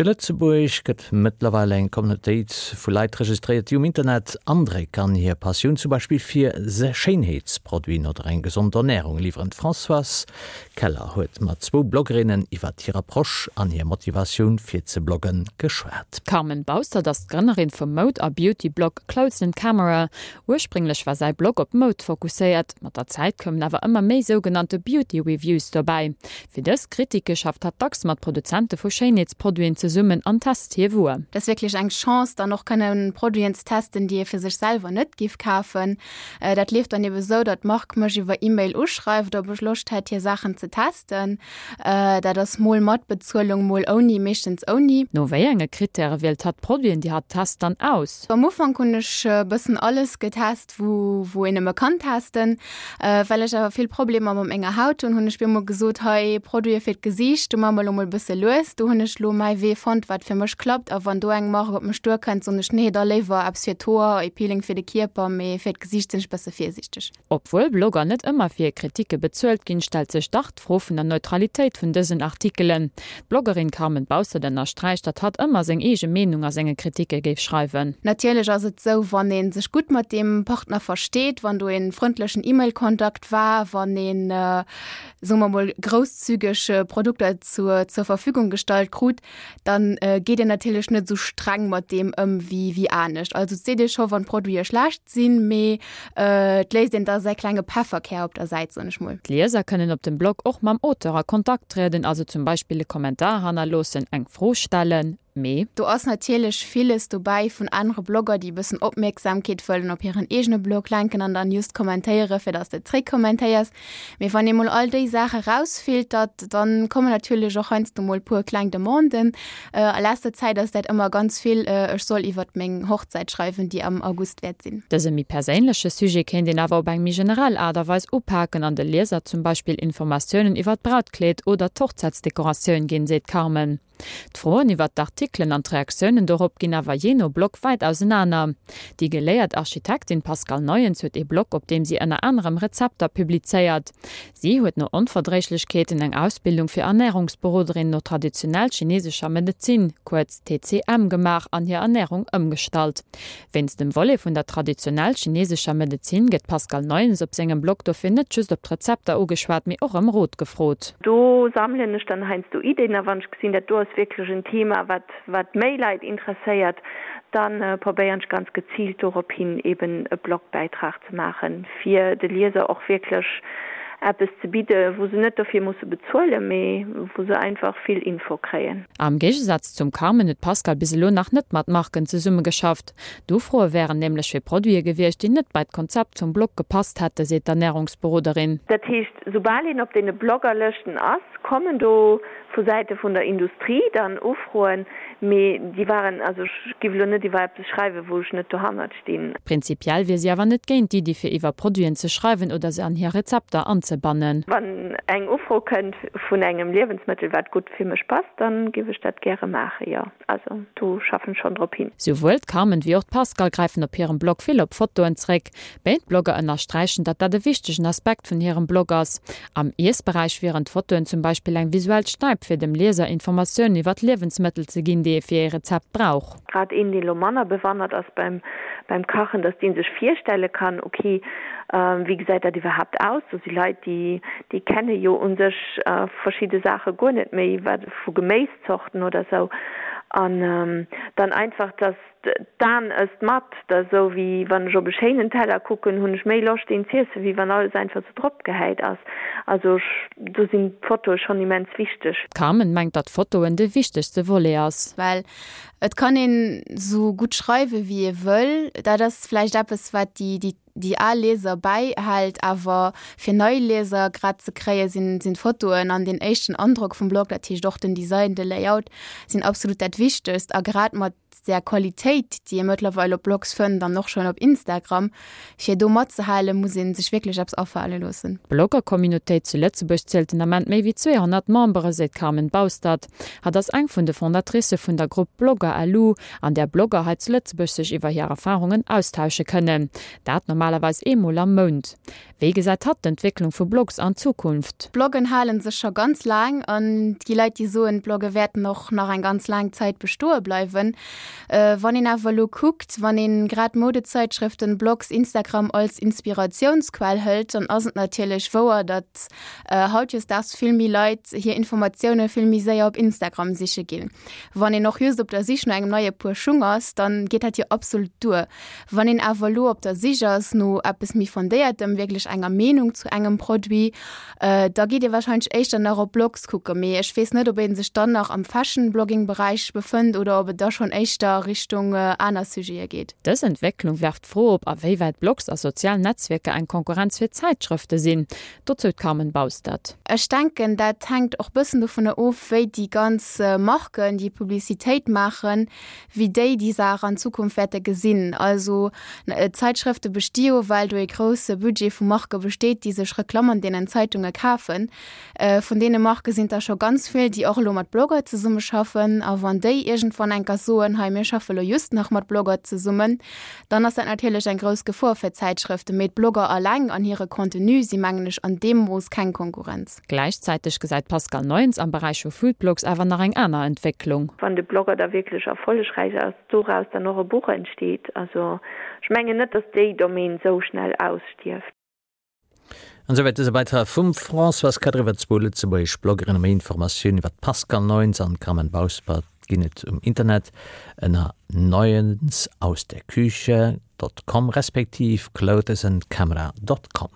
Zu Lëtzebuerg gëtt mëttlerweil eng Communautéit vu Leit registréiert, déi um Internet Andréck an hir Passioun zum Beispill fir Schéinheetsproduiten oder eng gesond Ernärung liwweren. D'Françoise Keller huet mat zwou Bloggerinnen iwwert hir Approche an hir Motivatioun fir ze bloggen geschwat. D'Carmen Baustert ass d'Grënnerin vum Moud a Beauty-Blog Clothes and Camera. Ursprénglech war säi Blog op Moud fokusséiert, mat der Zäit koumen awer ëmmer méi sougenannte Beauty Reviews dobäi. Fir dës Kritike schafft hatt dacks mat Produzente vu Schéinheetsproduiten zesummen an test hir Wuer. Dat ass wierklech eng Chance, dann och kënne Produiten ze testen, déi ee fir sech selwer net giff kafen. Dat leeft dann ebe sou, datt d'Mark mech iwwer E-Mail uschreift, ob ech Loscht hätt, hir Saachen ze testen. Dat ass mol mat Bezuelung, mol ouni, meeschtens ouni. No wéi enge Krittäre wielt hatt d'Produiten, déi hatt test, dann aus? Am Ufank hunn ech e bëssen alles getest. wou wou een nëmme kann testen. Well ech awer vill Problemer mat menger Haut hunn, hunn ech bemol gesot, hei Produite fir d'Gesiicht, do maache mer elo mol e bësse lues. Do hunn ech elo mäi Wee fonnt, wat fir mech klappt. A wann do eng Mark op mech duerkënnt, soen ech, nee, da léiwer eppes fir d'Hoer, e Peeling fir de Kierper, mee fir d'Gesiicht sinn ech bësse virsiichteg. Obwuel Blogger net ëmmer fir hir Kritike bezuelt ginn, stellt sech dach d'Fro vun der Neutralitéit vun dësen Artikelen. D'Bloggerin Carmen Baustert ënnersträicht, datt hatt ëmmer seng eege Meenung a senge Kritike géif schreiwen. Natierlech ass et sou, wann ee sech gutt mat deem Partner versteet, wann do ee frëndlechen E-Mail-Kontakt war, wann een, soe mer mol, grousszügeg Produkter zur zur Verfügung gestallt krut, dann geet een natierlech net esou streng mat deem ëm wéi wéi anescht. Also et seet ee scho wann d'Produite schlecht sinn, mee et léisst een da säi klenge Pefferkär op der Säit, soen ech mol. D'Lieser kënnen op dem Blog och mam Auteur a Kontakt trieden, also zum Beispill e Kommentar hannerloossen, eng Fro stellen, mee. Do ass natierlech villes dobäi vun anere Blogger, déi e bëssen Opmierksamkeet wëllen op hiren eegene Blog lenken an dann just kommentéiere fir dass de zréckkommentéiers. Mee wann ee mol all déi Saache rausfiltert, dann kommen natierlech och heiansdo mol puer kleng Demanden. A leschter Zäit ass dat ëmmer ganz vill, ech soll iwwert meng Hochzäit schreiwen, déi am August wäert sinn. Dëse méi perséinleche Sujet kéint een awer op eng méi generell Aart a Weis upaken an de Lieser zum Beispill Informatiounen iwwert d'Brautkleed oder d'Hochzäitsdekoratioun ginn, seet d'Carmen. D'Froen iwwert d'Artikelen an d'Reaktiounen dorop ginn awer jee no Blog wäit ausenaner. Déi geléiert Architektin Pascale Neuens huet ee Blog, op deem si ënner anerem Rezepter publizéiert. Si huet no Onverdréiglechkeeten eng Ausbildung fir Ernärungsberoderin no traditionell chinesescher Medezin, kuerz TCM, gemaach an hir Ernärung ëmgestallt. Wéinst dem Volet vun der traditionell chinesescher Medezin gëtt d'Pascale Neuens op sengem Blog dofir net just op d'Rezepter ugeschwat, mee och ëm Rot gefrot. Do sammelen ech dann heiansdo Ideen a wann ech gesinn, dat do ass wierklech en Thema, wat wat méi Leit interesséiert, da probéieren ech ganz geziilt dorop hin eben e Blogbäitrag ze maachen, fir de Lieser och wierklech eppes ze bidde wou se net dofir musse bezuelen, mee wou se einfach vill Info kréien. Am Géigesaz zum Carmen huet d'Pascale bis elo nach net mat Marken zesummegeschafft. D'Ufroe wären nämlech fir Produite gewiescht, déi net bei d'Konzept vum Blog gepasst hätte, seet d'Ernärungsberoderin. Dat heescht, soubal een op deene Bloggerlëschten ass, kommen do vu Säite vun der Industrie dann Ufroen, mee déi waren, also ech giff elo net iwwer eppes schreiwen, wou ech net dohannert stinn. Prinzipiell wier si awer net géint d'Iddi fir iwwer Produiten ze schreiwen oder se an hir Rezepter anzebannen. Wann eng Ufro kënnt vun engem Liewensmëttel wat gutt fir mech passt, dann giff ech dat gäre maachen, jo. Also do schaffen ech schonn drop hin. Souwuel d'Carmen wéi och d'Pascale gräifen op hirem Blog vill op Fotoen zréck. Béid Blogger ënnersträichen, datt dat e wichtegen Aspekt vun hirem Blog ass. Am Iessberäich wieren d'Fotoen zum Beispill eng visuell Stäip fir dem Lieser Informatiounen iwwer d'Liewensmëttel ze ginn, déi ee fir ee Rezept brauch. Grad een, deen elo manner bewannert ass beim beim Kachen, dass dee sech virstelle kann, ok, wéi gesäit dat iwwerhaapt aus? Do si Leit, déi déi kenne jo u sech verschidde Saache guer net méi, wat vu Geméiszorten oder sou. An dann einfach, dass d'Aen ësst mat, dat ass esou wéi wann ech op e schéinen Teller kucken, hunn ech méi Loscht deen z'iessen, wéi wann alles einfach sou drop gehäit ass. Also ech, do sinn d'Fotoe schonn immens wichteg. D'Carmen mengt, datt Fotoen de wichtegste Volet ass. Well et kann een sou gutt schreiwe wéi ee wëll, dat ass vläicht eppes wat déi déi déi al Lieser bäihält, awer fir nei Lieser grad ze kréie sinn sinn d'Fotoen an deen éischten Androck vum Blog, dat heescht och den Design, de Layout sinn absolut dat Wichtegst a grad mat. där Qualitéit, déi ee mëttlerweil op Blogs fënnt an och schonn op Instagram, fir do matzehalen, muss ee sech wierklech eppes afale loossen. D'Blogger-Communautéit zu Lëtzebuerg zielt den Ament méi wéi 200 Membere, seet d'Carmen Baustert. Hatt ass eng vun de Fondatricë vun der Grupp Blogger LU, an där Blogger hei zu Lëtzebuerg sech iwwer hir Erfarungen austausche kënnen. Dat normalerweis eemol am Mount. Wéi gesäit hatt d'Entwécklung vu Blogs an Zukunft? D'Bloggen hale sech scho ganz laang an et gi Leit, déi soen, d'Blogge wäerten och nach eng ganz laang Zäit bestoe bleiwen. Wann een awer elo kuckt, wann een grad Modezeitschrëften, Blogs, Instagram als Inspiratiounsquell hëlt, dann ass et natierlech wouer, datt hautdesdaags vill méi Leit hir Informatioune vill méi séier op Instagram siche ginn. Wann een och just op der Sich no engem neie Puer Schung ass, dann geet dat jo absolut duer. Wann een awer elo op der Sich ass no eppes méi Fondéiertem, wierklech enger Meenung zu engem Produit, da geet ee warscheinlech éischter nach op Blogs kucken. Mee ech weess net, ob ee sech dann nach am Fashion-Blogging-Beräich befënnt oder ob et da schonn éischter Richtung aner Sujete geet. Dës Entwécklung werft d'Fro op, a wéi wäit Blogs a sozial Netzwierker eng Konkurrenz fir Zäitschrëfte sinn. Dozou d'Carmen Baustert. Ech denken, dat hänkt och bëssen dovunner of, wéi déi ganz Marken, déi Publicitéit maachen, wéi déi déi Saach an Zukunft wäerte gesinn. Also d'Zeitschrëfte besti jo, well do ee grousse Budget vu Marke besteet, déi sech Reklamm an deenen Zeitunge kafen. Vun deene Marke sinn der scho ganz vill, déi och elo mat Blogger zesummeschaffen. A wann déi iergendwann enker soen, hei mir schaffe lo just nach mat Blogger zesummen, dann ass dat natierlech eng grouss Gefor fir d'Zäitschrëften. Mee d'Blogger alleng an hire Contenu si mengen ech an deem Mooss keng Konkurrenz. Gläichzäiteg gesäit d'Pascale Neuens am Beräich vu Foodblogs awer nach eng aner Entwécklung. Wann de Blogger da wierklech erfollegräich ass, doraus dann och e Buch entsteet. Also ech mengen net, datt déi Domaine sou schnell ausstierft. An esouwäit dëse Beitrag vum Françoise Kadr iwwer zwou lëtzebuergesch Bloggerinnen. Méi Informatiounen iwwer d'Pascale Neuens an d'Carmen Bauspert ginn et um Internet ënner neuensausderküche dot com respektiv clothesandcamera dot com.